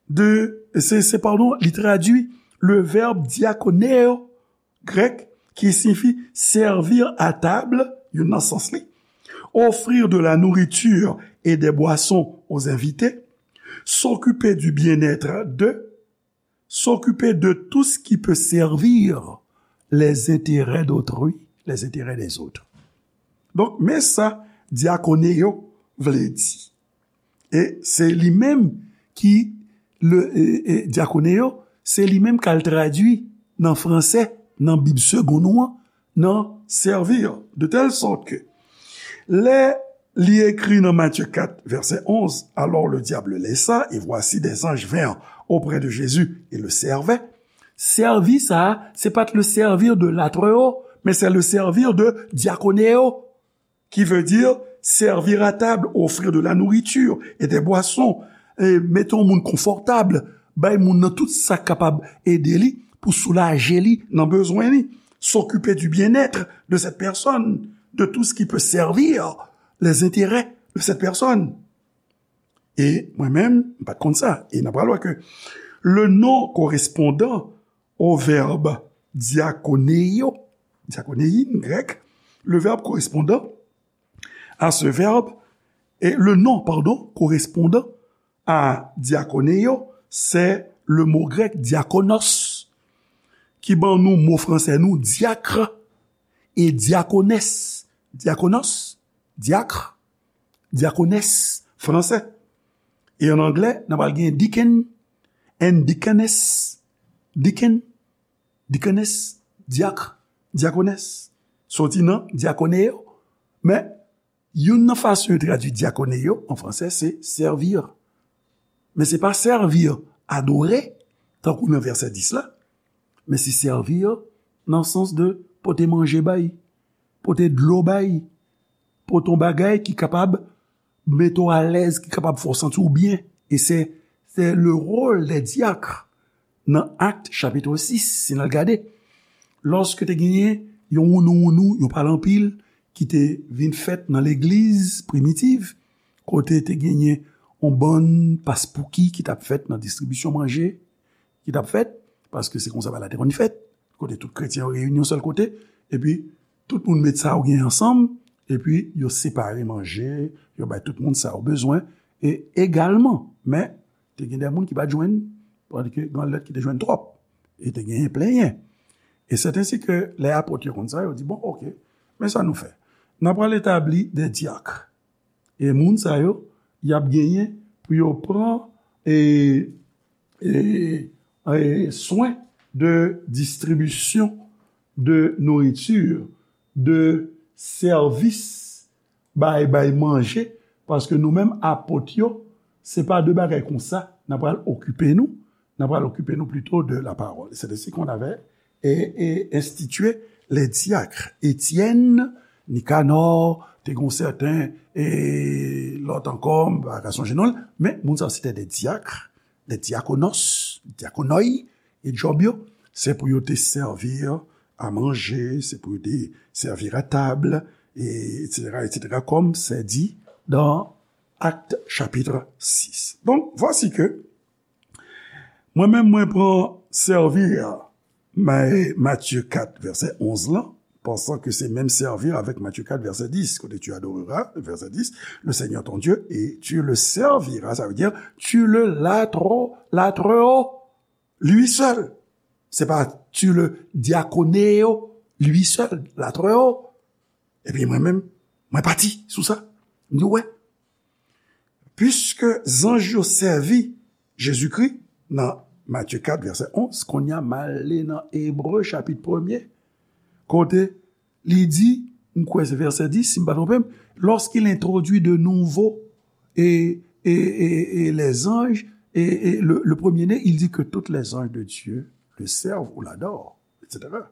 de, se, se, pardon, li tradui le verbe diakoneo grèk qui signifie servir à table, youn nan sans li, offrir de la nourriture et des boissons aux invités, s'occuper du bien-être de, s'occuper de tout ce qui peut servir les intérêts d'autrui, les intérêts des autres. Donk, men sa diakoneo vle di. E se li menm ki, le, e, e, diakoneo, se li menm k al tradui nan fransè, nan Bib segon nou an, nan servir, de telle sorte que lè li ekri nan Matthieu quatre, verset onze, alors le diable laissa, et voici des anges vinrent auprès de Jésus et le servaient. Sèvi sa a, se pa t le servir de latreuo, men se le servir de diakoneo, qui veut dire servir à table, offrir de la nourriture et des boissons, e mete yon moun konfòtab, bay moun nan tout sa k kapab ede li pou soulaje li nan bezwen li, s'occuper du bien-être de cette personne, de tout ce qui peut servir les intérêts de cette personne. E mwen menm, m pa t konn sa. E n ap pral wè ke le nom correspondant au verbe diakoneio, diakonei'n grèk, le verbe correspondant à ce verbe, et le nom, pardon, correspondant à diakoneo, c'est le mot grec diakonos, ki ban nou mo fransè nou diak e diakonès. Diakonos, diak, diakonès, fransè. E an anglè, n ap al gen deacon and deaconess. Deacon, deaconess, diak, diakonès. Soti nan diakoneo. Men, youn nan fason yo tradui diakoneo an fransè, se servir. Men se pa servir, adore, tankou nan vèsè dis la, men se servir nan sans de pote manje bay, pote dlo bay, pote yon bagay ki kapab mete w alèz, ki kapab fè w santi w byen. E se, se le rôle des diacres nan Actes chapitre six, si n al gade. Lòske te genyen yon wounou-wounou, yon pale anpil, ki te vin fèt nan legliz primitiv, kote te genyen yon bann paspouki ki t ap fèt nan distribisyon manje, ki t ap fèt, paske se konsa bagay la te konn fèt, kote tout kretyen yo reyini yon sèl kote, epi tout moun met sa yo gen ansanm, epi yo separe manje, yo bay tout moun sa yo bezwen, e egalman, men te gen de moun ki pa t jwenn, tandike gen lòt ki te jwenn twòp, e te genyen plenyen. E c'est ainsi que lè apot yo konn sa, yo di, bon, oke, men sa nou fè. N ap pral etabli de dyak. E moun sa yo, y ap genyen pou yo pran e, e, e, swen de distribisyon de nouriti, de sèvis bay, bay manje, paske nou menm apot yo, se pa de bagay konsa n ap pral okipe nou, n ap pral okipe nou plito de la parole. C'est ainsi qu'on avait et, et institué les diacres. Étienne, Nicanor, te gon sèten, e lòt ankò, m pa ka sonje non l, men moun sa se te de dyak, de diakonos, diakonoi, e djòb yo, se pou yo te sèvi a manje, se pou yo te sèvi a tab, e et cetera, et cetera, comme c'est dit dans Actes chapitre six. Donc, voici que mwen menm, mwen pran sèvi a Ma-, Matye kat, vèsè onz lan, pensant que c'est même servir avec Matthieu quatre, verset dix, kote tu adoreras, verset dix, le Seigneur ton Dieu, et tu le serviras, ça veut dire tu le latro-, latreras lui seul. Se pa tu le diaconeo lui seul, latreras. Epi mwen menm, mwen pati sou sa. M di, wè, piske zanj yo sèvi Jezikri nan Matye kat, vèsè onz, kounye a m ale nan Ebre, chapit premye, kote li di, m kwè se vèsè dis, si m pa twonpe m, lorsqu'il introduit de nouveaux et, et, et, et les anges, et, et le, le premier-né, il dit que tous les anges de Dieu le servent ou l'adorent, et cetera,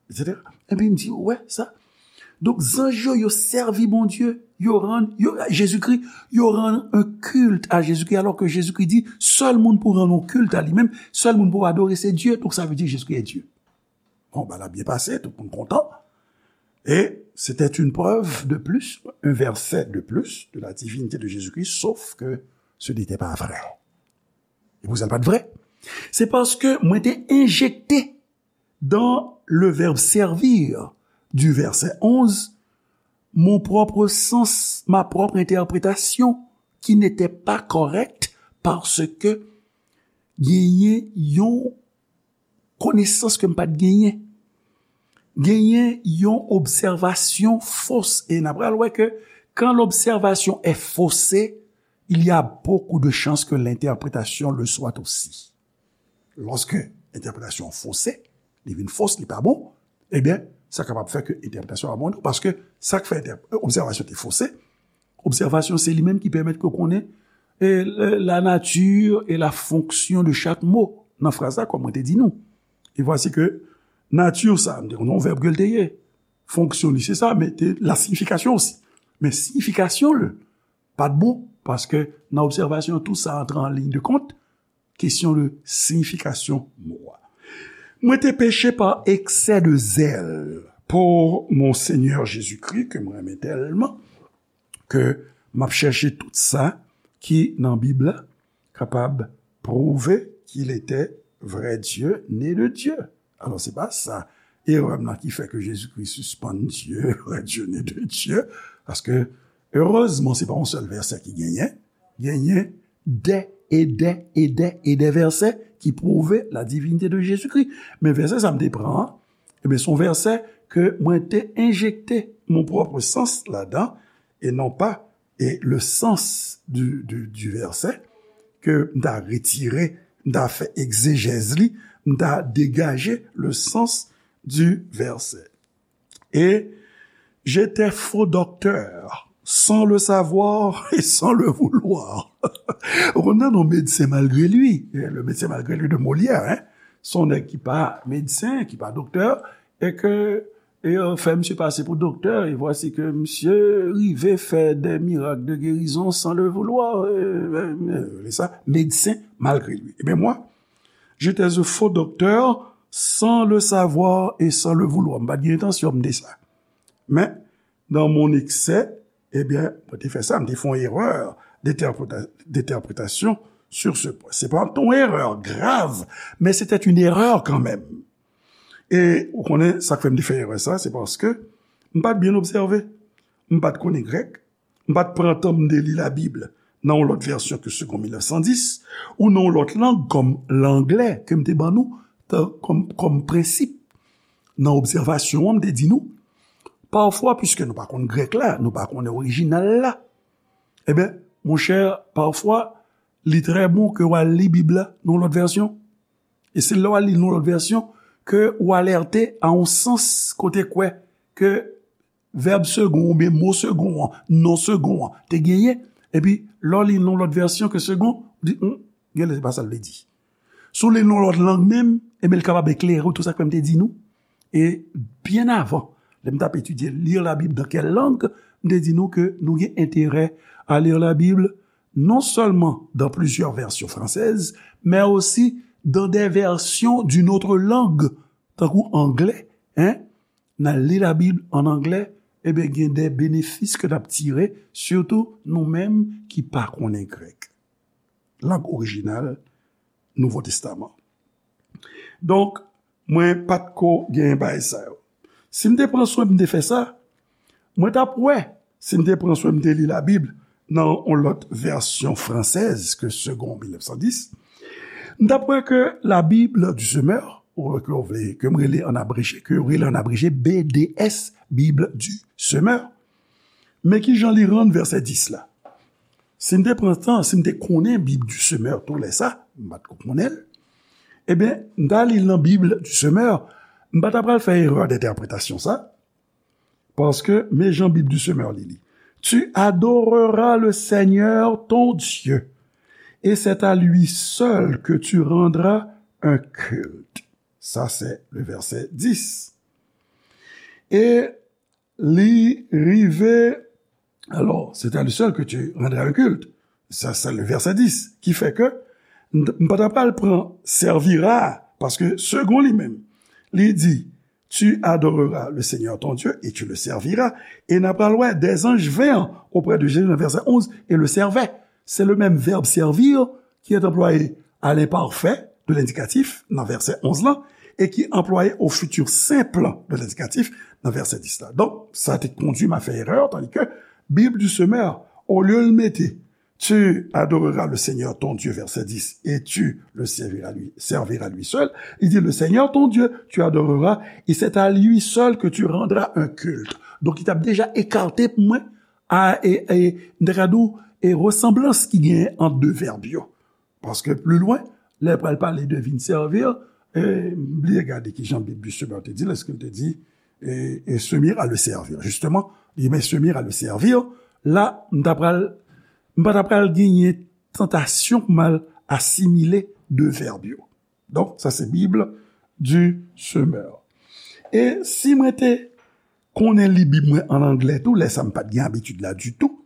et cetera. Epi m di, ou wè sa? Donk, zanj yo, yo sèvi Bondye, yo rann, yo, Jezikri, yo rann un culte à Jésus-Christ, alors que Jésus-Christ dit, sèl moun pou rann yon culte à lui-même, sèl moun pou adore, se Dye. Donk, sa vle di Jezikri est Dieu. Bon, bagay la byen pase, tout moun kontan. Et c'était une preuve de plus, un verset de plus de la divinité de Jésus-Christ, sauf que ce n'était pas vrai. E pou sa l pa t vrè? Se paske mwen te enjekte dans le verbe servir du verset onze, mon propre sens, ma propre interprétation, qui n'était pas correcte parce que genyen yon konesans ke m pa t genyen. Genyen yon obsèvasyon fos. E n ap pral wè ke quand l'observation est faussée, il y a beaucoup de chances que l'interprétation le soit aussi. Lòske entèpretasyon an fose, li vin fos, li pa bon, ebyen, sa kapab fè ke entèpretasyon an pa bon, paske sa k fè entè-, obsèvasyon te fose, obsèvasyon se li menm ki pèmèt ke w konnen, e, la, la nature et la fonction de chaque mot nan fraz la, kòm mwen te di nou. E vwasi ke nati sa, m te konn yon vèb ke l te ye. Fonksyon li se sa, men te la siyifikasyon osi. Men siyifikasyon l pa t bon, paske nan obsèvasyon, tout sa antre an liy de kont, kesyon de siyifikasyon mo a. Mwen te peche pa eksè de zèl pou mon Senyè Jezikri, ke mwen renmen tèlman, ke m ap chèche tout sa ki nan Bib la, kapab pwouve qu'il était vrai Dieu, né de Dieu. Alò, se pa sa erè m nan ki fè ke Jezikri sispann Dye, vrai Dieu, né de Dieu, paske, erezman, se pa yon sèl vèsè ki genyen, genyen dè e dè e dè e dè vèsè ki pwouve la divinite de Jezikri. Men vèsè sa m te pran an, ebyen, se yon vèsè ke mwen te enjekte mon propre sens ladan, e non pa, e le sens du, du, du verset, ke m ta retire, m ta fè egzejèz li, m ta degaje le sens du verset. Et j'étais faux docteur, sans le savoir et sans le vouloir. Ou konn tande yon medsen malgre li, le médecin malgré lui de Molière, hein? Se yon nèg ki pa medsen, ki pa doktè, e ke, et euh, fait monsieur passer pour docteur, et voici que monsieur rive fait des miracles de guérison sans le vouloir. Euh, euh, euh, sa, médecin malgré lui. Eh bien, moi, j'étais un faux docteur sans le savoir et sans le vouloir. M pa t gen entansyon m te sa. Men, dans mon excès, eh bien, mwen te fè sa, m te fè yon erè d'interpréta- d'interprétation sur ce point. Se pa yon erè grav, men c'était une erreur quand même. E ou konnen sa k fè m te fè erè sa, se paske m pa t byen obsève. M pa t konnen grèk. M pa t pran tan m te li Labib nan yon lòt vèsyon ke Segond mil nèf san dis, ou nan yon lòt lang kòm langlè ke m te ban nou tan- kòm, kòm prensip. Nan obsèvasyon an, m te di nou, pafwa, piske nou pa konn grèk la, nou pa konnen orijinal la, ebyen, monchè, pafwa, li trè bon ke w al li Bib la nan yon lòt vèsyon. E se lè w al li nan yon lòt vèsyon ke w alète a yon sans kote kwè ke vèb segon oubyen mo segon an, non segon an, te genyen. Epi, lè w li nan yon lòt vèsyon ke segon, ou di, hmm, genlè se pa sa l vle di. Si w li l nan yon lòt lang menm, ebyen, l kapab eklere w tout sa ke m te di nou. E byen avan, lè m t ap etidye lire la Bible dans quelle langue, m te di nou ke nou gen enterè à lire la Bible non seulement dans plusieurs versions françaises, mais aussi dans des versions d'une autre langue, tankou anglè, hein? N al li Labib an anglè, ebyen, gen de benefis ke n ap tire, sitou nou menm ki pa konnen grèk. Lang orijinal Nouvo Testaman. Donk, mwen pa t ko gen bagay sa yo. Si m te pran swen m te fè sa, mwen t ap wè, si m te pran swen m te li Labib nan yon lòt vèsyon fransèz ke Segond mil nèf san dis, m t ap wè ke la Bible du Semeur, ou ke w vle, ke m rele an abreje, ke yo rele an abreje B D S, Bible du Semeur. Men ki jan li rann vèsè dis la? Si m te pran tan, si m te konnen Bib du Semeur tou lè sa, m pa t ko konnen l, ebyen, m ta li l nan Bib du Semeur, m pa ta pral fè erè dentèpretasyon sa, paske men jan Bib du Semeur li li. Tu adoreras le Seigneur ton Dieu, et c'est à lui seul que tu rendras un culte. Ça, c'est le verset dix. Et li rive, alors, c'est à lui seul que tu rendras un culte. Ça, c'est le verset dix. Ki fè ke m pa ta pral pran servira, paske segon li menm, li di, tu adoreras le Seigneur ton Dieu et tu le serviras. E n ap pral wè des anges vinrent auprès de Jésus nan vèsè onz et le servaient. C'est le même verbe servir qui est employé à l'imparfait de l'indicatif nan vèsè onz lan et qui est employé au futur simple de l'indicatif nan vèsè dis la. Donk, sa te kondui m a fè erè, tandis que Bible du Semeur, olye l mete tu adoreras le Seigneur ton Dieu, verset dix, et tu le serviras lui, serviras lui seul. Il dit, le Seigneur ton Dieu, tu adoreras, et c'est à lui seul que tu rendras un culte. Donk, li t ap deja ekate pou mwen, a, e, e, m ta ka di w, e resanblans ki genyen ant de vèb yo. Paske pli lwen, lè l pral pale de vin sèvi, e, m bliye gade ki jan Bib du Semeur te di l, èske l te di, e, e se mire à le servir. Justement, li men se mire à le servir, la, m ta pral, m pa ta pral genyen tantasyon pou m al asimile de vèb yo. Donk, sa se Bib du Semeur. E si mwen te konnen li Bib mwen an anglè tou, lè sa m pa t gen abitid la ditou,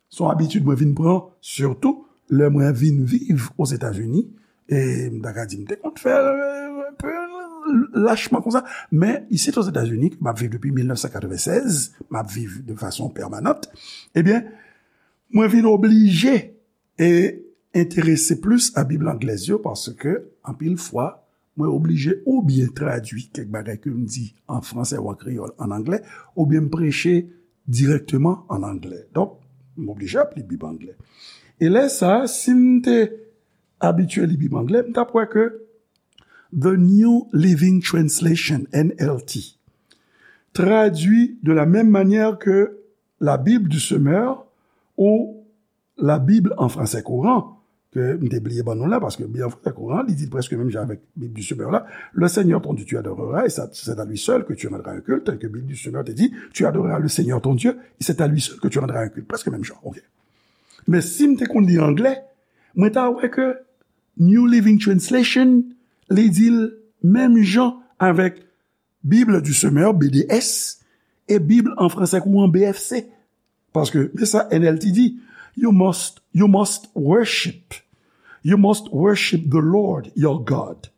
se yon abitid mwen vin pran, sitou lè mwen vin viv Ozetazini. E m ta ka di, m te konn fè, euh, un peu lachman konsa. Men, isit Ozetazini, ke m ap viv depi mil nèf san katrevennsèz, m ap viv de fason pèmanant, ebyen, mwen vin oblije e enterese plis a Bib anglèz yo, paske anpil fwa, mwen oblije oubyen tradui kèk bagay ke m di an fransè ou an kreyòl an anglè, oubyen m preche dirèkteman an anglè. Donk, m oblije ap li Bib anglè. E lè sa a, si m te abitye li Bib anglè, m t ap wè ke The New Living Translation, N L T, traduit de la même manière que la Bible du Semeur ou la Bible en français courant, ke m te bliye ban nou la, paske Bib an fransè kouran, li di l prèske menm jan avèk Bib du Semeur la, le Seigneur ton Dieu tu adoreras, et ça, c'est à lui seul que tu rendras un culte, tel que Bib du Semeur te di, tu adoreras le Seigneur ton Dieu, et c'est à lui seul que tu rendras un culte. Prèske menm jan, ok. Men si m te konn li anglè, mwen ta wè ke New Living Translation, li di l menm jan avèk Bible du Semeur, B D S, e Bib an fransè kouran, B F C. Paske, men sa N L T di, you must, you must worship, you must worship the Lord your God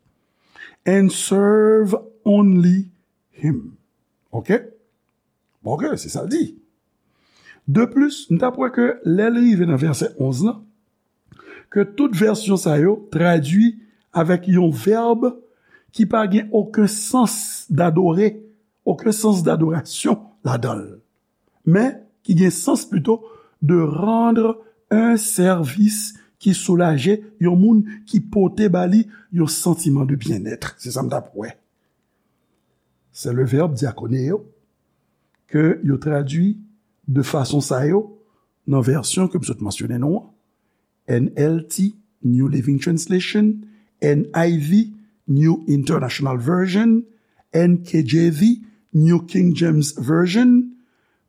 and serve only him. Ok? Bon, ok, se sa l di. De plis, n t ap wè ke lè l rive nan vèsè onz lan, ke tout vèsyon sa yo tradui avèk yon vèb ki pa gen okenn sans dadore, okenn sans dadorasyon ladan l, men ki gen sans plito de rendre un service ki soulaje yon moun, ki pote ba li yon santiman de byennèt. Se sa m t ap wè. Se le vèb diakoneo ke yo tradui de fason sa yo nan vèsyon ke m sot mansyone nou an. N L T, New Living Translation, N I V, New International Version, N K J V, New King James Version,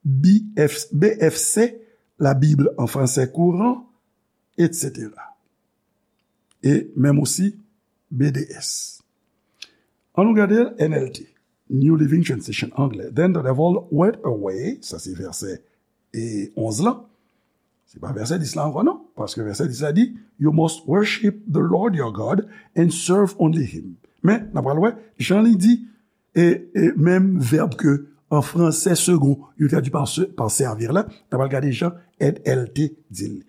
B F, B F C, la Bible en français courant, et cetera. E menm osi B D S. An nou gade N L T, New Living Translation anglè. Then the devil went away, sa se vèsè e onz lan. Se pa vèsè dis la ankò non, paske vèsè dis la di, you must worship the Lord your God and serve only him. Men, n ap pral wè, jan li di, e, e menm vèb ke an fransè second, yo tradui pa se, pa servir la, n ap pral gade jan N L T di l.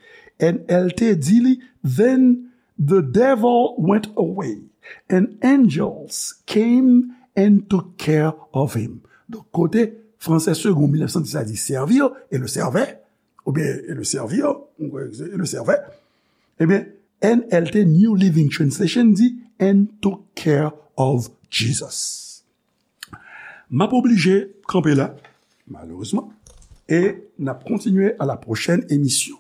N L T di li, then the devil went away, and angels came and took care of him. Donk, kote fransè second mil nèf san dis la di servir, e le servait, oubyen e le servir, e le servait, ebyen, N L T New Living Translation di, and took care of Jesus. M ap oblije kanpe la, malerezman, e n ap kontinye a la pwochèn emisyon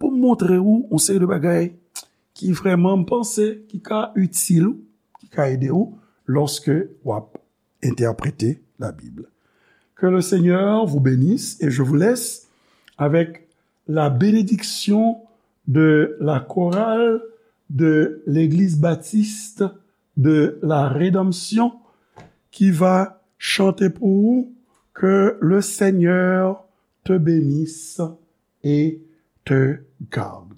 pou m montre ou yon seri de bagay ki vrèman m panse ki ka itil ou, ki ka ede ou lòske w ap interpréter la Bible. Que le Seigneur vous bénisse et je vous laisse avec la bénédiction de la chorale de l'Église baptiste de la Rédemption qui va chanter pour vous Que le Seigneur te bénisse et te garde.